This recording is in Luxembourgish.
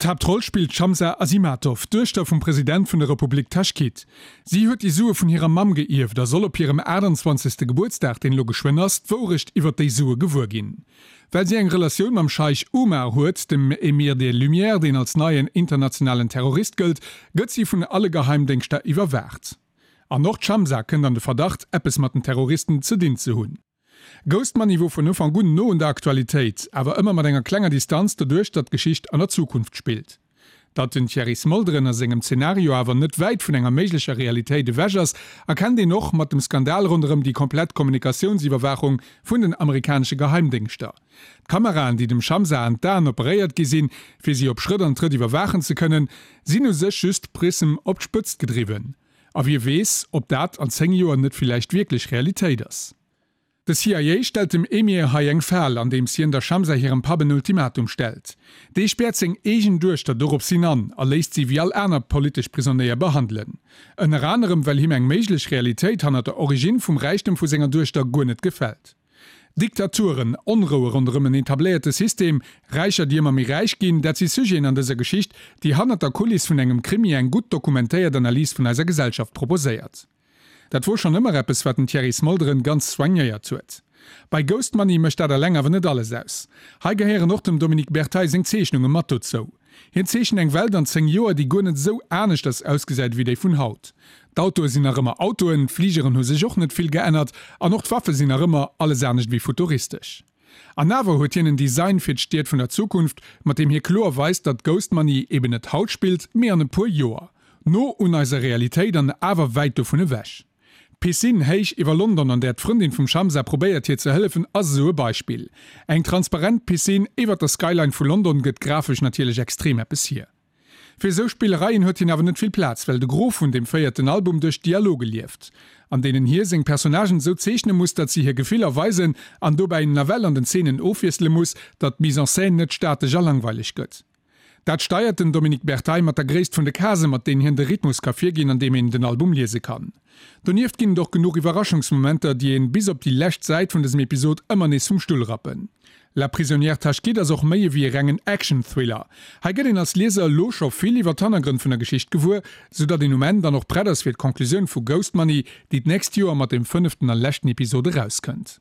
D'Haaptroll spillt d'Shamsa Azimatov, d'Duechter vum President vun der Republik Taschkit. Si huet déi Sue vun hirer Mamm geierft a soll op hirem 28. Gebuertsdag, deen elo geschwënn ass, d'Wourecht iwwer déi Sue gewuer ginn. Well si eng Relatioun mam Scheich Umar huet, dem Emir des Lumières, deen als neien internationalen Terrorist gëllt, gëtt si vun alle Geheimdéngschter iwwerwaacht. An och d'Shamsa kënnt an de Verdacht, eppes mat den Terroristen ze dinn ze hunn. Ghost Money wor vun Ufank un no un der Aktualitéit, awer ëmmer mat enger klenger Distanz doduerch datt d'Geschicht an der Zukunft spillt. Datt den Thierry Smolderen a sengem Zenario awer net wäit vun enger méiglecher Realitéit ewech ass, erkennt een och mat dem Skandal ronderëm déi komplett Kommunikatiounsiwwerwaachung vun den amerikanesche Geheimdéngschter. D'Kameraen, déi dem Shamsa an d'Aen operéiert gi sinn, fir si op Schrëtt an Trëtt iwwerwaachen ze kënnen, sinn u sech just Prism op d'Spëtzt gedriwwen. A wie weess, ob dat an 10 Joer net villäicht wierklech Realitéit ass. De CIA stellt dem Emir hei eng Fal, andeems hien der Shamsa hirem Papp en Ultimatum stellt. Dee späert seng eegen Duechter doropshin an a léisst si wéi all aner politesch Prisonéier behandelen. Ënner anerem well him eng méiglech Realitéit hannert der Origine vum Räichtem vu senger Duechter guer net gefält. Diktaturen, Onroue ronderëm en etabléierte System, Räicher déi ëmmer méi räich ginn, dat si Sujeten an dëser Geschicht, déi hannert der Kuliss vun engem Krimi eng gutt dokumentéiert Analys vun eiser Gesellschaft proposéiert. Dat wor schonn ëmmer eppes, wat den Thierry Smolderen ganz soignéiert huet. Bei Ghost Money mécht dat eleng awer net alles aus. Hei gehéieren och dem Dominique Berteil seng Zeechnunge mat dozou. Hien zeechent eng Welt an 10 Joer, déi guer net esou aneschters ausgesäit ewéi déi vun haut. D'Autoe sinn nach ëmmer Autoen, d'Fligeren hu sech och net vill geännert an och d'Waffe sinn nach ëmmer alles anescht ewéi futuristesch. An awer huet hien en Design fir d'Stied vun der Zukunft, mat deem hie kloer weist, datt Ghost Money eben net haut spillt, mee an e puer Joer. No un eiser Realitéit an awer wäit dovun ewech. D'Piscine héich iwwer London, an där d'Frëndin vum Shamsa probéiert hir ze hëllefen, ass esou e Beispill. Eng transparent Piscine iwwer der Skyline vu London gëtt grafesch natierlech extrem eppes hier. Fir esou Spillereien huet hien awer net vill Plaz, well de Gros vun deem véierten Album duerch Dialoge lieft, an deenen hie seng Personnagen esou zeechne muss, datt si hir Gefiller weisen an dobäi nawell an den Zeenen ofwiessele muss, datt d'Mise en scène net statesch a langweileg gëtt. Dat steiert den Dominique Berteil mat der Gréisst vun de Case mat deenen hien de Rhythmus ka virginn an deem een den Album liese kann. Donieft ginn et och genuch Iwwerraschungsmomenter, déi een bis op déi lescht Säit vun dësem Episod ëmmer nees vum Stull rappen. La prisonnière Tashkit ass och méi ewéi e rengen Action-Thriller. Hei gëtt een als Lieser elo scho vill iwwer d'Hannergrënn vun der Geschicht gewuer, sou datt een um Enn dann och prett ass fir d'Conclusioun vu Ghost Money, déi d'nächst Joer mat dem fënneften a leschten Episod erauskënnt.